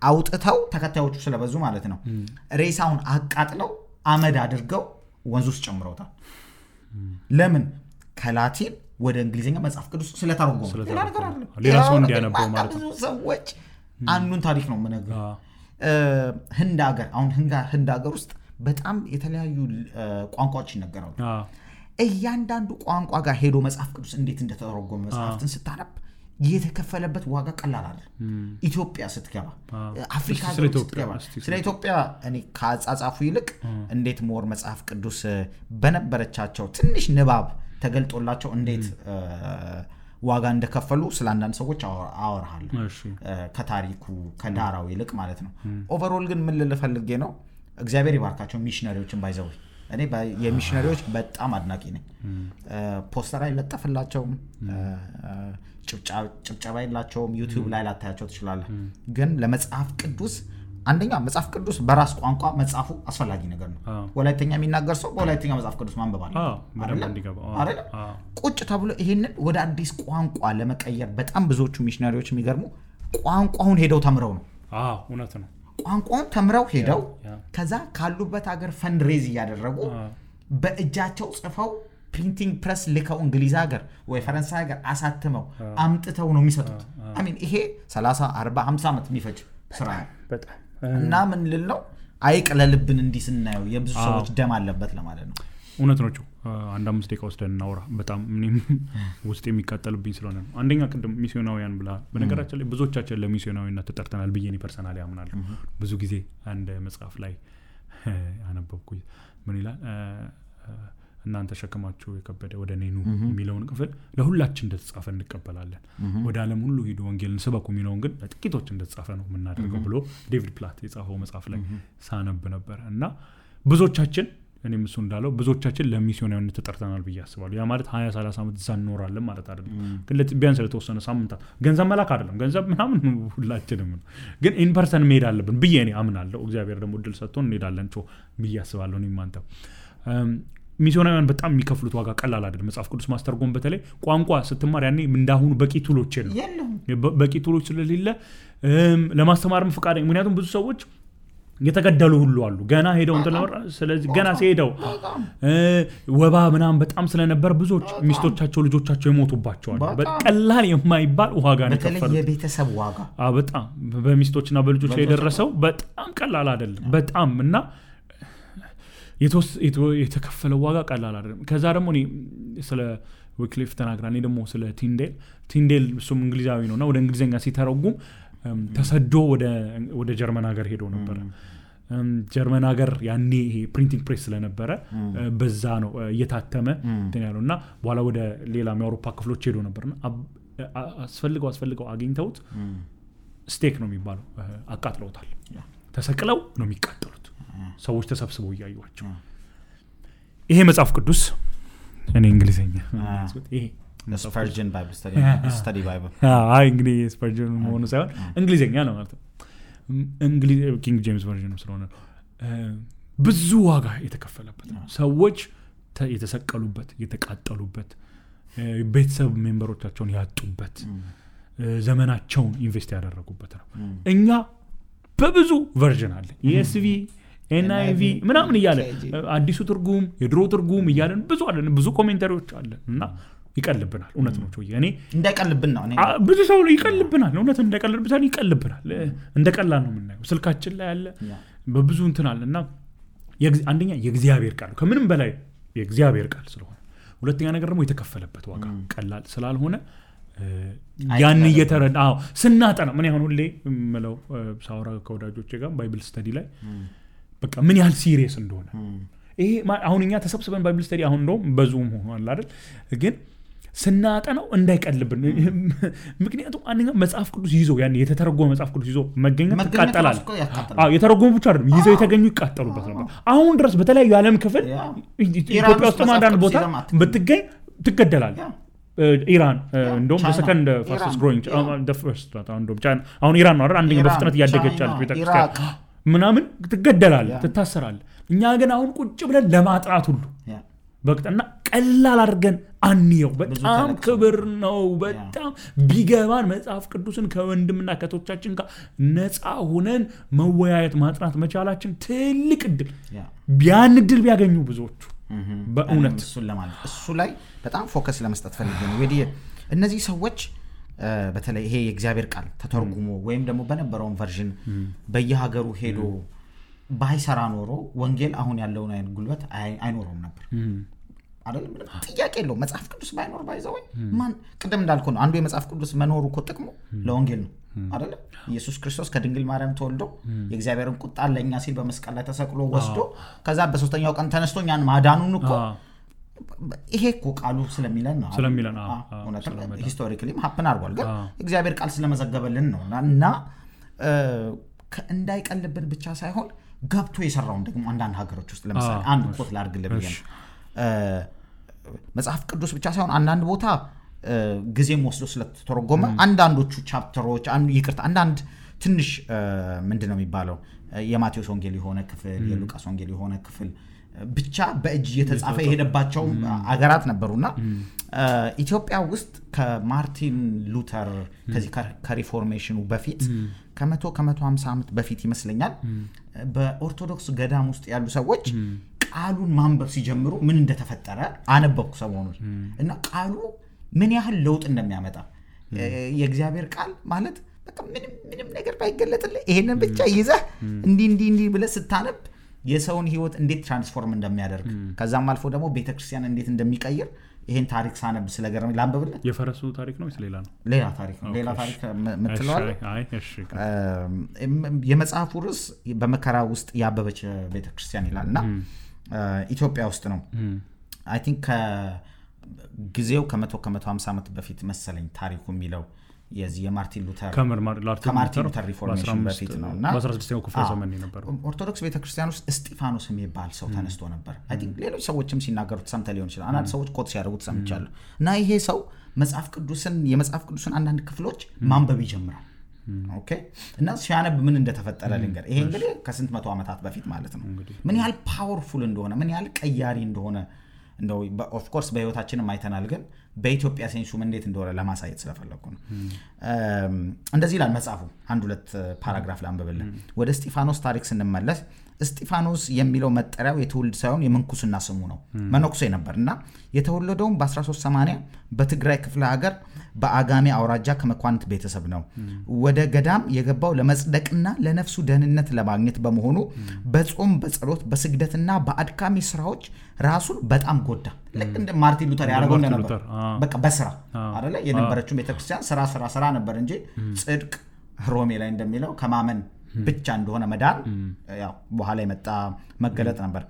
አውጥተው ተከታዮቹ ስለበዙ ማለት ነው ሬሳውን አቃጥለው አመድ አድርገው ወንዝ ውስጥ ጨምረውታል ለምን ከላቲን ወደ እንግሊዘኛ መጽሐፍ ቅዱስ ስለተረጎመ ሌላ ሰው እንዲያነበው ማለት ነው ሰዎች አንዱን ታሪክ ነው የምነግርህ ህንድ ሀገር ውስጥ በጣም የተለያዩ ቋንቋዎች ይነገራሉ እያንዳንዱ ቋንቋ ጋር ሄዶ መጽሐፍ ቅዱስ እንዴት እንደተተረጎመ መጽሐፍትን ስታነብ የተከፈለበት ዋጋ ቀላል አይደለም ኢትዮጵያ ስትገባ አፍሪካ ስትገባ ስለ ኢትዮጵያ እኔ ከአጻጻፉ ይልቅ እንዴት ሞር መጽሐፍ ቅዱስ በነበረቻቸው ትንሽ ንባብ ተገልጦላቸው እንዴት ዋጋ እንደከፈሉ ስለአንዳንድ ሰዎች አወራሃለሁ ከታሪኩ ከዳራው ይልቅ ማለት ነው ኦቨርኦል ግን ምን ልፈልጌ ነው እግዚአብሔር ይባርካቸው ሚሽነሪዎችን ባይዘው እኔ የሚሽነሪዎች በጣም አድናቂ ነኝ ፖስተር አይለጠፍላቸው ጭብጨባ የላቸውም ዩቲዩብ ላይ ላታያቸው ትችላለህ ግን ለመጽሐፍ ቅዱስ አንደኛ መጽሐፍ ቅዱስ በራስ ቋንቋ መጽሐፉ አስፈላጊ ነገር ነው ወላይተኛ የሚናገር ሰው በወላይተኛ መጽሐፍ ቅዱስ ማንበብ አይደል ቁጭ ተብሎ ይሄንን ወደ አዲስ ቋንቋ ለመቀየር በጣም ብዙዎቹ ሚሽነሪዎች የሚገርሙ ቋንቋውን ሄደው ተምረው ነው እውነት ነው ቋንቋውን ተምረው ሄደው ከዛ ካሉበት ሀገር ፈንድሬዝ ያደረጉ በእጃቸው ጽፈው ፕሪንቲንግ ፕሬስ ልከው እንግሊዝ ሀገር ወይ ፈረንሳይ ሀገር አሳትመው አምጥተው ነው የሚሰጡት አይ ሚን ይሄ 30 40 50 አመት የሚፈጅ ስራ እና ምን ልል ነው አይቅለልብን እንዲህ ስናየው የብዙ ሰዎች ደም አለበት ለማለት ነው እውነት ነው አንድ 5 ደቂቃ ወስደን እናውራ በጣም ምንም ውስጥ የሚቃጠልብኝ ስለሆነ ነው አንደኛ ቅድም ሚስዮናውያን ብላ በነገራችን ላይ ብዙዎቻችን ለሚስዮናዊነት ተጠርተናል ብዬ ነው ፐርሰናሊ አምናለሁ ብዙ ጊዜ አንድ መጽሐፍ ላይ አነበብኩኝ ምን ይላል እናንተ ሸከማችሁ የከበደ ወደ እኔ ኑ የሚለውን ክፍል ለሁላችን እንደተጻፈ እንቀበላለን ወደ ዓለም ሁሉ ሄዱ ወንጌልን ስበኩ የሚለውን ግን ለጥቂቶች እንደተጻፈ ነው የምናደርገው ብሎ ዴቪድ ፕላት የጻፈው መጽሐፍ ላይ ሳነብ ነበር እና ብዙዎቻችን እኔም እሱ እንዳለው ብዙዎቻችን ለሚስዮናዊነት ተጠርተናል ብዬ አስባለሁ ያ ማለት 20-30 ዓመት እዛ እንኖራለን ማለት አይደለም ግን ቢያንስ ለተወሰነ ሳምንታት ገንዘብ መላክ አይደለም ገንዘብ ምናምን ሁላችንም ግን ኢን ፐርሰን መሄድ አለብን ብዬ እኔ አምናለሁ እግዚአብሔር ደግሞ እድል ሰጥቶን እንሄዳለን ብዬ አስባለሁ እኔም አንተ ሚስዮናውያን በጣም የሚከፍሉት ዋጋ ቀላል አይደለም መጽሐፍ ቅዱስ ማስተርጎም በተለይ ቋንቋ ስትማር ያኔ እንዳሁኑ በቂ ቱሎች የለም በቂ ቱሎች ስለሌለ ለማስተማርም ፍቃደኛ ምክንያቱም ብዙ ሰዎች የተገደሉ ሁሉ አሉ ገና ሄደው እንተለወራ ስለዚህ ገና ሲሄደው ወባ ምናም በጣም ስለነበር ብዙዎች ሚስቶቻቸው ልጆቻቸው የሞቱባቸዋል በቀላል የማይባል ዋጋ ነው በተለይ የቤተሰብ ዋጋ በጣም በሚስቶችና በልጆች ላይ የደረሰው በጣም ቀላል አይደለም በጣም እና የተከፈለው ዋጋ ቀላል አይደለም ከዛ ደግሞ እኔ ስለ ዊክሊፍ ተናግራኔ ደግሞ ስለ ቲንዴል እሱም እንግሊዛዊ ነውና ወደ እንግሊዘኛ ሲተረጉም ተሰዶ ወደ ጀርመን ሀገር ሄዶ ነበር ጀርመን ሀገር ያኔ ይሄ ፕሪንቲንግ ፕሬስ ስለነበረ በዛ ነው እየታተመ እንትን ያለውና በኋላ ወደ ሌላ የአውሮፓ ክፍሎች ሄዶ ነበርና አስፈልገው አግኝተውት ስቴክ ነው የሚባለው አቃጥለውታል ተሰቅለው ነው የሚቃጠሉት ሰዎች ተሰብስበው ያዩዋቸው ይሄ መጽሐፍ ቅዱስ እኔ እንግሊዘኛ ይሄ Spurgeon Bible study Bible እንግዲህ Spurgeon መሆኑ ሳይሆን እንግሊዘኛ ነው ማለት ነው እንግሊዝ ኪንግ ጄምስ ቨርዥን ስለሆነ ብዙ ዋጋ የተከፈለበት ነው ሰዎች የተሰቀሉበት የተቃጠሉበት ቤተሰብ ሜምበሮቻቸውን ያጡበት ዘመናቸውን ኢንቨስት ያደረጉበት ነው እኛ በብዙ ቨርዥን አለ ESV NIV ምናምን ይያለ አዲሱ ትርጉም የድሮ ትርጉም ይያለን ብዙ አለን ብዙ ኮሜንታሪዎች አለ እና ይቀልብናል እውነት ነው እኔ እንዳይቀልብን ነው እኔ ብዙ ሰው ይቀልብናል እውነት እንዳይቀልብታል ይቀልብናል እንደቀላል ነው የምናየው ስልካችን ላይ ያለ በብዙ እንትን አለና አንደኛ የእግዚአብሔር ቃል ከምንም በላይ የእግዚአብሔር ቃል ስለሆነ ሁለተኛ ነገር ደግሞ የተከፈለበት ዋጋ ቀላል ስላልሆነ ያን እየተረዳው ስናጠና ምን ያሁን ሁሌ ምለው ሳውራ ከወዳጆቼ ጋር ባይብል ስተዲ ላይ በቃ ምን ያህል ሲሪየስ እንደሆነ ይሄ አሁንኛ ተሰብስበን ባይብል ስተዲ አሁን ነው በዙም ሆኗል አይደል ግን ስናጠናው እንዳይቀልብን ምክንያቱም አንኛ መጽሐፍ ቅዱስ ይዞ ያን የተተረጎመ መጽሐፍ ቅዱስ ይዞ መገኘት ይቃጠላል የተረጎሙ ብቻ አይደለም ይዘው የተገኙ ይቃጠሉበት ነበር አሁን ድረስ በተለያዩ ዓለም ክፍል ኢትዮጵያ ውስጥ አንዳንድ ቦታ ብትገኝ ትገደላል ኢራን እንደውም በሰከንድ ፋስተስት ግሮዊንግ the first እንደውም ቻይና አሁን ኢራን ነው አይደል አንደኛ በፍጥነት ያደገች አለች ቤተክርስቲያን ምናምን ትገደላል ትታሰራል እኛ ግን አሁን ቁጭ ብለን ለማጥራት ሁሉ በቅጠና ቀላል አድርገን አንየው በጣም ክብር ነው በጣም ቢገባን መጽሐፍ ቅዱስን ከወንድምና ከቶቻችን ጋር ነፃ ሆነን መወያየት ማጥራት መቻላችን ትልቅ እድል ቢያን እድል ቢያገኙ ብዙዎቹ በእውነት እሱ ላይ በጣም ፎከስ ለመስጠት ፈልጌ ነው ወዲህ እነዚህ ሰዎች በተለይ ይሄ የእግዚአብሔር ቃል ተተርጉሞ ወይም ደግሞ በነበረው ቨርዥን በየሀገሩ ሄዶ ባይሰራ ኖሮ ወንጌል አሁን ያለውን አይነት ጉልበት አይኖርም ነበር አይደለም ጥያቄ የለው መጽሐፍ ቅዱስ ባይኖር ባይዘው ማን ቀደም እንዳልኩ ነው አንዱ የመጽሐፍ ቅዱስ መኖሩ እኮ ጥቅሙ ለወንጌል ነው አይደለም ኢየሱስ ክርስቶስ ከድንግል ማርያም ተወልዶ የእግዚአብሔርን ቁጣ ለኛ ሲል በመስቀል ላይ ተሰቅሎ ወስዶ ከዛ በሶስተኛው ቀን ተነስቶኛን ማዳኑን እኮ ይሄ እኮ ቃሉ ስለሚለን ነው ሂስቶሪካሊ ሀፕን አድርጓል ግን እግዚአብሔር ቃል ስለመዘገበልን ነው እና እንዳይቀልብን ብቻ ሳይሆን ገብቶ የሰራውን ደግሞ አንዳንድ ሀገሮች ውስጥ ለምሳሌ አንድ ኮት ላድርግልህ ብዬ ነው መጽሐፍ ቅዱስ ብቻ ሳይሆን አንዳንድ ቦታ ጊዜም ወስዶ ስለተተረጎመ አንዳንዶቹ ቻፕተሮች አንዳንድ ትንሽ ምንድነው የሚባለው የማቴዎስ ወንጌል የሆነ ክፍል የሉቃስ ወንጌል የሆነ ክፍል ብቻ በእጅ የተጻፈ የሄደባቸው አገራት ነበሩና ኢትዮጵያ ውስጥ ከማርቲን ሉተር ከዚህ ከሪፎርሜሽኑ በፊት ከ150 ዓመት በፊት ይመስለኛል በኦርቶዶክስ ገዳም ውስጥ ያሉ ሰዎች ቃሉን ማንበብ ሲጀምሩ ምን እንደተፈጠረ አነበብኩ ሰሞኑን እና ቃሉ ምን ያህል ለውጥ እንደሚያመጣ የእግዚአብሔር ቃል ማለት በቃ ምንም ነገር ባይገለጥልህ ይሄንን ብቻ ይዘህ እንዲ ብለህ ስታነብ የሰውን ህይወት እንዴት ትራንስፎርም እንደሚያደርግ ከዛም አልፎ ደግሞ ቤተክርስቲያን እንዴት እንደሚቀይር ይሄን ታሪክ ሳነብ ስለገረመኝ ላንብብልህ። የፈረሱ ታሪክ ነው ወይስ ሌላ ነው? ሌላ ታሪክ ነው። ሌላ ታሪክ ምትለዋል? አይ እሺ። የመጽሐፉ ርዕስ በመከራ ውስጥ ያበበች ቤተክርስቲያን ይላልና ኢትዮጵያ ውስጥ ነው። አይ ቲንክ ከጊዜው ከ150 ዓመት በፊት መሰለኝ ታሪኩ የሚለው የዚህ የማርቲን ሉተር ከማርቲን ሉተር ሪፎርሜሽን በፊት ነውና በ16ኛው ክፍለ ዘመን ነበር። ኦርቶዶክስ ቤተክርስቲያን ውስጥ እስጢፋኖስ የሚባል ሰው ተነስቶ ነበር። አይ ቲንክ ሌሎች ሰዎችም ሲናገሩት ሰምተ ሊሆን ይችላል። አንዳንድ ሰዎች ኮት ሲያደርጉት ሰምቻለሁ። እና ይሄ ሰው የመጽሐፍ ቅዱስን አንዳንድ ክፍሎች ማንበብ ይጀምራል። ኦኬ እና ሲያነብ ምን እንደተፈጠረ ልንገር። ይሄ እንግዲህ ከስንት መቶ ዓመታት በፊት ማለት ነው። ምን ያህል ፓወርፉል እንደሆነ ምን ያህል ቀያሪ እንደሆነ እንደው ኦፍ ኮርስ በህይወታችንም አይተናል፣ ግን በኢትዮጵያ ሴንሱም እንዴት እንደሆነ ለማሳየት ስለፈለኩ ነው። እንደዚህ ይላል መጽሐፉ። አንድ ሁለት ፓራግራፍ ላንብብልህ። ወደ እስጢፋኖስ ታሪክ ስንመለስ እስጢፋኖስ የሚለው መጠሪያው የትውልድ ሳይሆን የምንኩስና ስሙ ነው። መነኩሴ ነበርና የተወለደው በ1380 በትግራይ ክፍለ ሀገር በአጋሜ አውራጃ ከመኳንንት ቤተሰብ ነው። ወደ ገዳም የገባው ለመጽደቅና ለነፍሱ ደህንነት ለማግኘት በመሆኑ በጾም በጸሎት በስግደትና በአድካሚ ስራዎች ራሱን በጣም ጎዳ። ልክ እንደ ማርቲን ሉተር ያደረገው ነበር። በቃ በስራ አይደለ የነበረችው ቤተክርስቲያን ስራ ነበር እንጂ ጽድቅ ሮሜ ላይ እንደሚለው ከማመን ብቻ እንደሆነ መዳን ያው በኋላ የመጣ መገለጥ ነበር።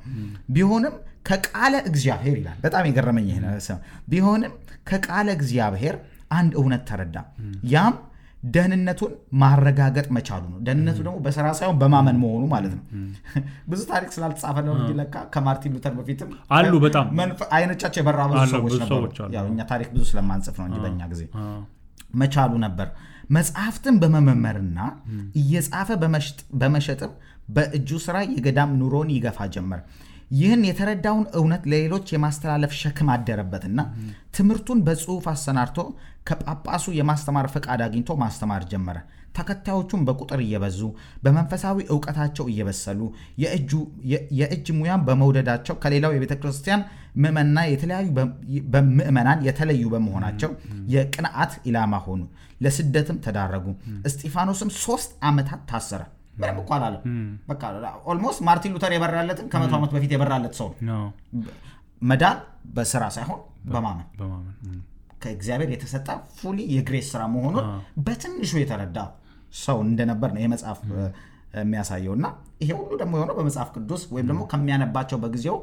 ቢሆንም ከቃለ እግዚአብሔር ይላል። በጣም የገረመኝ ይሄ ነው። ቢሆንም ከቃለ እግዚአብሔር አንድ እውነት ተረዳ። ያም ደህንነቱን ማረጋገጥ መቻሉ ነው። ደህንነቱ ደግሞ በስራ ሳይሆን በማመን መሆኑ ማለት ነው። ብዙ ታሪክ ስላልተጻፈ ነው እንጂ ለካ ከማርቲን ሉተር በፊትም አሉ በጣም አይኖቻቸው የበራ ብዙ ሰዎች ነበሩ። ያው እኛ ታሪክ ብዙ ስለማንጽፍ ነው እንጂ በእኛ ጊዜ መቻሉ ነበር። መጽሐፍትን በመመርመርና እየጻፈ በመሸጥም በእጁ ስራ የገዳም ኑሮን ይገፋ ጀመር። ይህን የተረዳውን እውነት ለሌሎች የማስተላለፍ ሸክም አደረበትና ትምህርቱን በጽሁፍ አሰናድቶ ከጳጳሱ የማስተማር ፈቃድ አግኝቶ ማስተማር ጀመረ። ተከታዮቹም በቁጥር እየበዙ በመንፈሳዊ ዕውቀታቸው እየበሰሉ የእጅ ሙያን በመውደዳቸው ከሌላው የቤተክርስቲያን ምዕመናን የተለዩ በመሆናቸው የቅንዓት ኢላማ ሆኑ። ለስደትም ተዳረጉ። እስጢፋኖስም 3 ዓመታት ታሰረ። ምንም እኮ አላለም። በቃ ኦልሞስት ማርቲን ሉተር የበራለትን ከ100 ዓመት በፊት የበራለት ሰው ነው። መዳን በስራ ሳይሆን በማመን ከእግዚአብሔር የተሰጠ ፉሊ የግሬስ ስራ መሆኑን በትንሹ የተረዳ ሰው እንደነበር ነው የመጽሐፍ የሚያሳየውና ይሄ ሁሉ ደግሞ የሆነው በመጽሐፍ ቅዱስ ወይም ደግሞ ከሚያነባቸው በጊዜው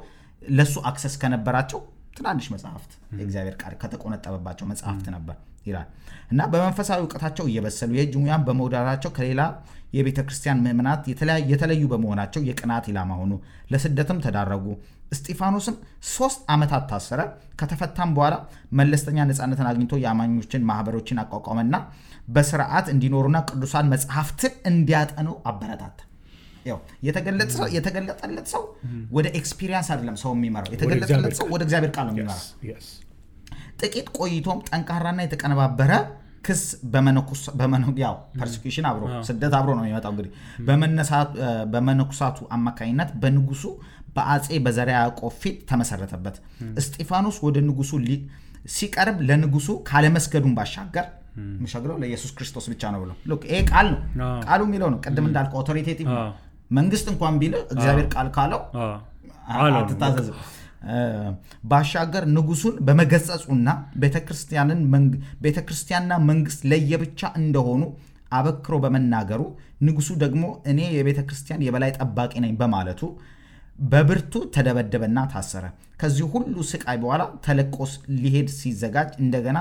ለሱ አክሰስ ከነበራቸው ትናንሽ መጽሐፍት የእግዚአብሔር ቃል ከተቆነጠበባቸው መጽሐፍት ነበር ይላል። እና በመንፈሳዊ ዕውቀታቸው እየበሰሉ የእጅ ሙያን በመውደዳቸው ከሌላ የቤተክርስቲያን ምዕመናት የተለዩ በመሆናቸው የቅንዓት ኢላማ ሆኑ። ለስደትም ተዳረጉ። እስጢፋኖስም 3 ዓመታት ታሰረ። ከተፈታም በኋላ መለስተኛ ነፃነትን አግኝቶ የአማኞችን ማህበሮችን አቋቋመና በስርዓት እንዲኖሩና ቅዱሳን መጽሐፍትን እንዲያጠኑ አበረታታ። ያው የተገለጠለት ሰው ወደ ኤክስፒሪየንስ አይደለም ሰው የሚመራው፣ የተገለጠለት ሰው ወደ እግዚአብሔር ቃል ነው የሚመራው። ጥቂት ቆይቶም ጠንካራና የተቀነባበረ ክስ ያው ፐርሲኪዩሽን አብሮ ስደት አብሮ ነው የሚመጣው። እንግዲህ በመነኩሳቱ አማካኝነት በንጉሱ በአጼ በዘርዓ ያዕቆብ ፊት ተመሰረተበት። እስጢፋኖስ ወደ ንጉሱ ሲቀርብ ለንጉሱ ካለመስገዱን ባሻገር መሸግለው ለኢየሱስ ክርስቶስ ብቻ ነው ብሎ ሉክ ይሄ ቃል ነው ቃሉ የሚለው ነው። ቅድም እንዳልከው አውቶሪቴቲቭ ነው። መንግስት እንኳን ቢል እግዚአብሔር ቃል ካለው አትታዘዝ። ባሻገር ንጉሱን በመገጸጹና ቤተክርስቲያንና መንግስት ለየብቻ እንደሆኑ አበክሮ በመናገሩ ንጉሱ ደግሞ እኔ የቤተክርስቲያን የበላይ ጠባቂ ነኝ በማለቱ በብርቱ ተደበደበና ታሰረ። ከዚህ ሁሉ ስቃይ በኋላ ተለቆስ ሊሄድ ሲዘጋጅ እንደገና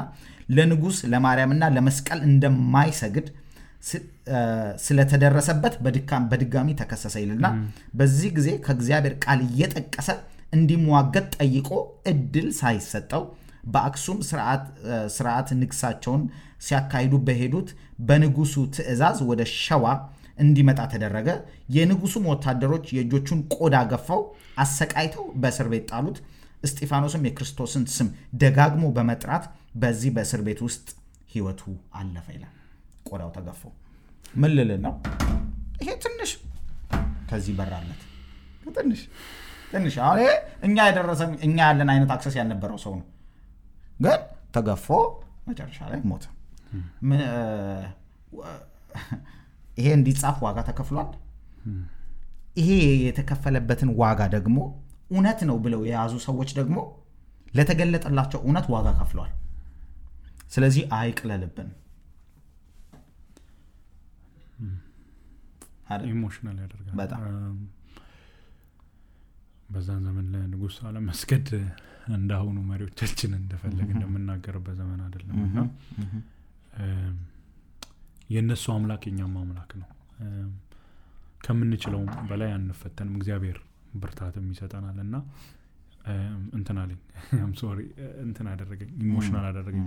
ለንጉስ ለማርያምና ለመስቀል እንደማይሰግድ ስለተደረሰበት በድጋሚ ተከሰሰ ይልና በዚህ ጊዜ ከእግዚአብሔር ቃል እየጠቀሰ እንዲሟገት ጠይቆ እድል ሳይሰጠው በአክሱም ስርዓት ንግሳቸውን ሲያካሂዱ በሄዱት በንጉሱ ትእዛዝ ወደ ሸዋ እንዲመጣ ተደረገ። የንጉሱም ወታደሮች የእጆቹን ቆዳ ገፈው አሰቃይተው በእስር ቤት ጣሉት። እስጢፋኖስም የክርስቶስን ስም ደጋግሞ በመጥራት በዚህ በእስር ቤት ውስጥ ህይወቱ አለፈ ይላል። ቆዳው ተገፎ ምን ልል ነው? ይሄ ትንሽ ከዚህ በራለት ትንሽ አሁን እኛ ያለን አይነት አክሰስ ያልነበረው ሰው ነው፣ ግን ተገፎ መጨረሻ ላይ ሞተ። ይሄ እንዲጻፍ ዋጋ ተከፍሏል። ይሄ የተከፈለበትን ዋጋ ደግሞ እውነት ነው ብለው የያዙ ሰዎች ደግሞ ለተገለጠላቸው እውነት ዋጋ ከፍለዋል። ስለዚህ አይቅለልብን። ኢሞሽናል ያደርጋል በጣም። በዛን ዘመን ለንጉስ አለመስገድ እንዳሁኑ መሪዎቻችን እንደፈለገ እንደምናገርበት ዘመን አይደለምና የነሱ አምላክ የኛም አምላክ ነው። ከምንችለው በላይ አንፈተንም። እግዚአብሔር ብርታትም ይሰጠናልና እንትን አለኝ I'm sorry እንትን አደረገኝ ኢሞሽናል አደረገኝ።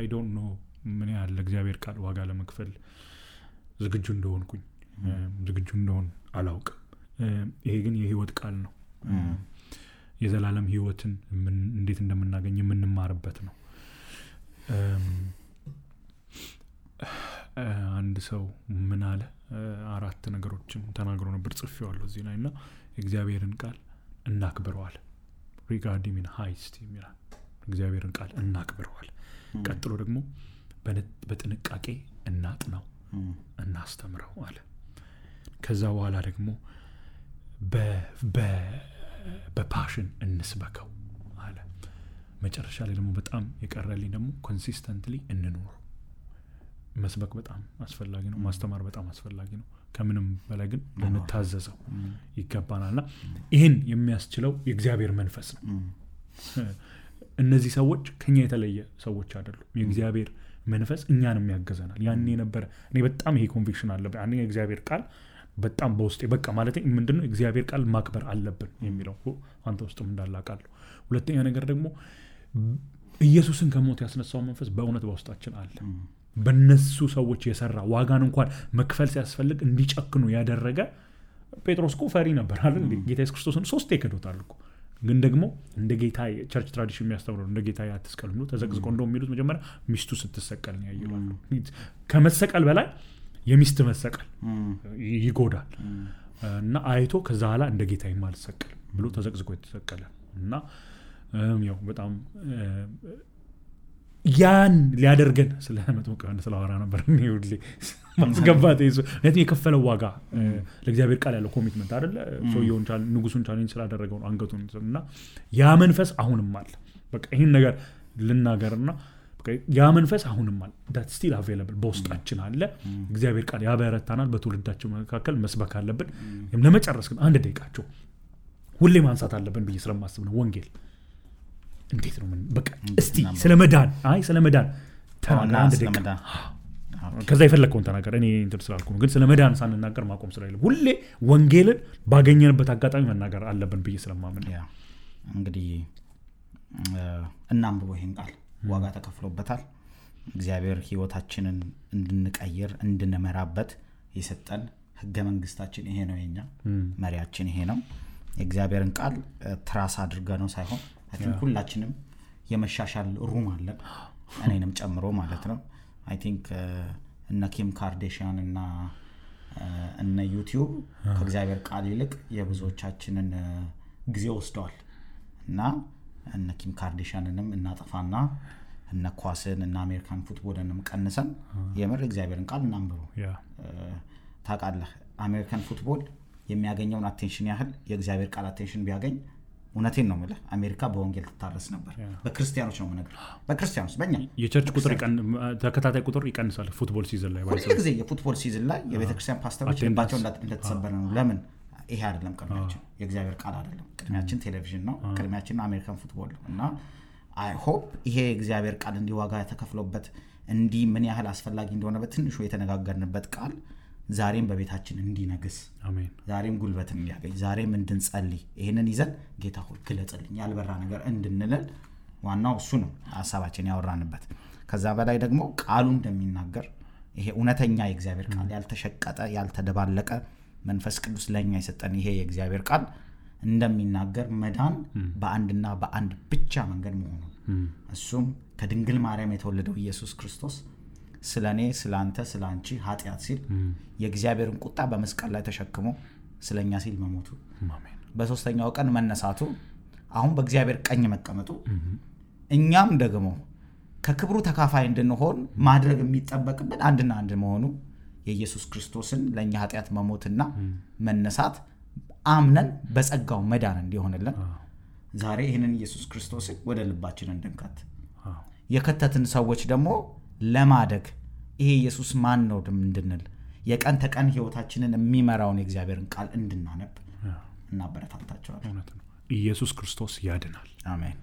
I don't know ምን ያህል ለእግዚአብሔር ቃል ዋጋ ለመክፈል ዝግጁ እንደሆንኩኝ ዝግጁ እንደሆን አላውቅም። ይሄ ግን የህይወት ቃል ነው። የዘላለም ህይወትን እንዴት እንደምናገኝ የምንማርበት ነው። አንድ ሰው ምን አለ 4 ነገሮችን ተናግሮ ነበር ጽፌዋለሁ እዚህ ላይና እግዚአብሔርን ቃል እናክብረዋል regarding in high esteem ይላል። እግዚአብሔርን ቃል እናክብረዋል። ቀጥሎ ደግሞ በጥንቃቄ እናጥናው እናስተምረው አለ። ከዛ በኋላ ደግሞ በፓሽን እንስበከው አለ። መጨረሻ ላይ ደግሞ በጣም የቀረልኝ ደግሞ ኮንሲስተንትሊ እንኑር። መስበክ በጣም አስፈላጊ ነው። ማስተማር በጣም አስፈላጊ ነው። ከምንም በላይ ግን ልንታዘዘው ይገባናልና ይሄን የሚያስችለው የእግዚአብሔር መንፈስ ነው። እነዚህ ሰዎች ከኛ የተለየ ሰዎች አይደሉም። የእግዚአብሔር መንፈስ እኛንም ያገዘናል። ያኔ ነበር እኔ በጣም ይሄ ኮንቪክሽን አለብኝ። አንደኛ የእግዚአብሔር ቃል በጣም በውስጤ በቃ ማለት ምንድነው እግዚአብሔር ቃል ማክበር አለብን የሚለው አንተ ውስጥም እንዳላቃለሁ። ሁለተኛ ነገር ደግሞ ኢየሱስን ከሞት ያስነሳው መንፈስ በእውነት በውስጣችን አለ። በእነሱ ሰዎች የሰራ ዋጋን እንኳን መክፈል ሲያስፈልግ እንዲጨክኑ ያደረገ ጴጥሮስ እኮ ፈሪ ነበር አይደል? ጌታ ኢየሱስ ክርስቶስን 3 ይከዶታል እኮ። ግን ደግሞ እንደ ጌታ ቸርች ትራዲሽን የሚያስተምረው እንደ ጌታ ያትስቀል ነው ተዘቅዝቆ እንደው የሚሉት መጀመሪያ ሚስቱ ስትሰቀል ነው ያየዋሉ። ከመሰቀል በላይ የሚስት መሰቀል ይጎዳል እና አይቶ ከዛ ኋላ እንደ ጌታ የማልሰቀል ብሎ ተዘቅዝቆ የተሰቀለ እና ያው በጣም ያን ሊያደርገን ስለመጥምቁ ዮሐንስ ስለዋራ ነበር ነው ሁሌ ማስገባት ይዞ ለዚህ የከፈለው ዋጋ ለእግዚአብሔር ቃል ያለው ኮሚትመንት አይደለ? ሶየውን ንጉሱን ቻሌንጅ ስላደረገው ነው አንገቱን እና ያ መንፈስ አሁንም አለ። በቃ ይሄን ነገር ልናገርና በቃ ያ መንፈስ አሁንም አለ። that still available በውስጣችን አለ። እግዚአብሔር ቃል ያበረታናል። በትውልዳችን መካከል መስበክ አለብን። ለመጨረስ ግን አንድ ደቂቃቸው ሁሌ ማንሳት አለብን ብዬ ስለማስብ ነው። ወንጌል እንዴት ነው በቃ እስቲ ስለመዳን ተናገር አንድ ደቂቃ ከዛ ይፈልከውን ተናገር። እኔ እንትን ስላልኩ ነው። ግን ስለመዳን ሳንናገር ማቆም ስለሌለ ሁሌ ወንጌልን ባገኘንበት አጋጣሚ መናገር አለብን ብዬ ስለማምን ነው። እንግዲህ እናንብበው ይሄን ቃል ዋጋ ተከፍሎበታል። እግዚአብሔር ህይወታችንን እንድንቀይር እንድንመራበት የሰጠን ህገ መንግስታችን ይሄ ነው። የኛ መሪያችን ይሄ ነው። የእግዚአብሔርን ቃል ትራስ አድርገን ነው ሳይሆን አሁን ሁላችንም የመሻሻል ሩም አለን እኔንም ጨምሮ ማለት ነው። አይ ቲንክ እነ ኪም ካርዴሽያን እና እነ ዩቲዩብ ከእግዚአብሔር ቃል ይልቅ የብዙዎቻችንን ጊዜ ወስደዋል እና እነ ኪም ካርዴሽያንንም እናጠፋና እነ ኳስን እና አሜሪካን ፉትቦልንም ቀንሰን የምር እግዚአብሔርን ቃል እናንብበው። ታውቃለህ አሜሪካን ፉትቦል የሚያገኘውን አቴንሽን ያህል የእግዚአብሔር ቃል አቴንሽን ቢያገኝ እውነቴን ነው ማለት አሜሪካ በወንጌል ትታረስ ነበር። በክርስቲያኖች ነው ማለት በክርስቲያኖች በእኛ የቸርች ቁጥር ተከታታይ ቁጥር ይቀንሳል። ፉትቦል ሲዝን ላይ ሁሉ ጊዜ የፉትቦል ሲዝን ላይ የቤተክርስቲያን ፓስተሮች ልባቸው እንደተሰበረ ነው። ለምን? ይሄ አይደለም ቅድሚያችን የእግዚአብሔር ቃል አይደለም። ቅድሚያችን ቴሌቪዥን ነው። ቅድሚያችን አሜሪካን ፉትቦል ነው። እና አይ ሆፕ ይሄ እግዚአብሔር ቃል እንዲዋጋ ተከፍሎበት እንዲ ምን ያህል አስፈላጊ እንደሆነ በትንሹ የተነጋገርንበት ቃል ዛሬም በቤታችን እንዲነግስ አሜን። ዛሬም ጉልበት እንዲያገኝ ዛሬም እንድንጸልይ ይሄንን ይዘን ጌታ ሆይ ግለጽልኝ ያልበራ ነገር እንድንል ዋናው እሱ ነው ሐሳባችን ያወራንበት። ከዛ በላይ ደግሞ ቃሉ እንደሚናገር ይሄ እውነተኛ የእግዚአብሔር ቃል ያልተሸቀጠ ያልተደባለቀ መንፈስ ቅዱስ ለኛ የሰጠን ይሄ የእግዚአብሔር ቃል እንደሚናገር መዳን በአንድና በአንድ ብቻ መንገድ መሆኑ እሱም ከድንግል ማርያም የተወለደው ኢየሱስ ክርስቶስ ስለኔ ስላንተ ስላንቺ ኃጢአት ሲል የእግዚአብሔርን ቁጣ በመስቀል ላይ ተሸክሞ ስለኛ ሲል መሞቱ አሜን። በሶስተኛው ቀን መነሳቱ አሁን በእግዚአብሔር ቀኝ መቀመጡ እኛም ደግሞ ከክብሩ ተካፋይ እንድንሆን ማድረግ የሚጠበቅብን አንድና አንድ መሆኑ የኢየሱስ ክርስቶስን ለኛ ኃጢያት መሞትና መነሳት አምነን በጸጋው መዳን እንዲሆንልን ዛሬ ይሄንን ኢየሱስ ክርስቶስን ወደ ልባችን እንድንከት የከተትን ሰዎች ደግሞ ለማደግ ይሄ ኢየሱስ ማን ነው እንድንል የቀን ተቀን ህይወታችንን የሚመራውን የእግዚአብሔርን ቃል እንድናነብ እናበረታታቸዋለን ኢየሱስ ክርስቶስ ያድናል አሜን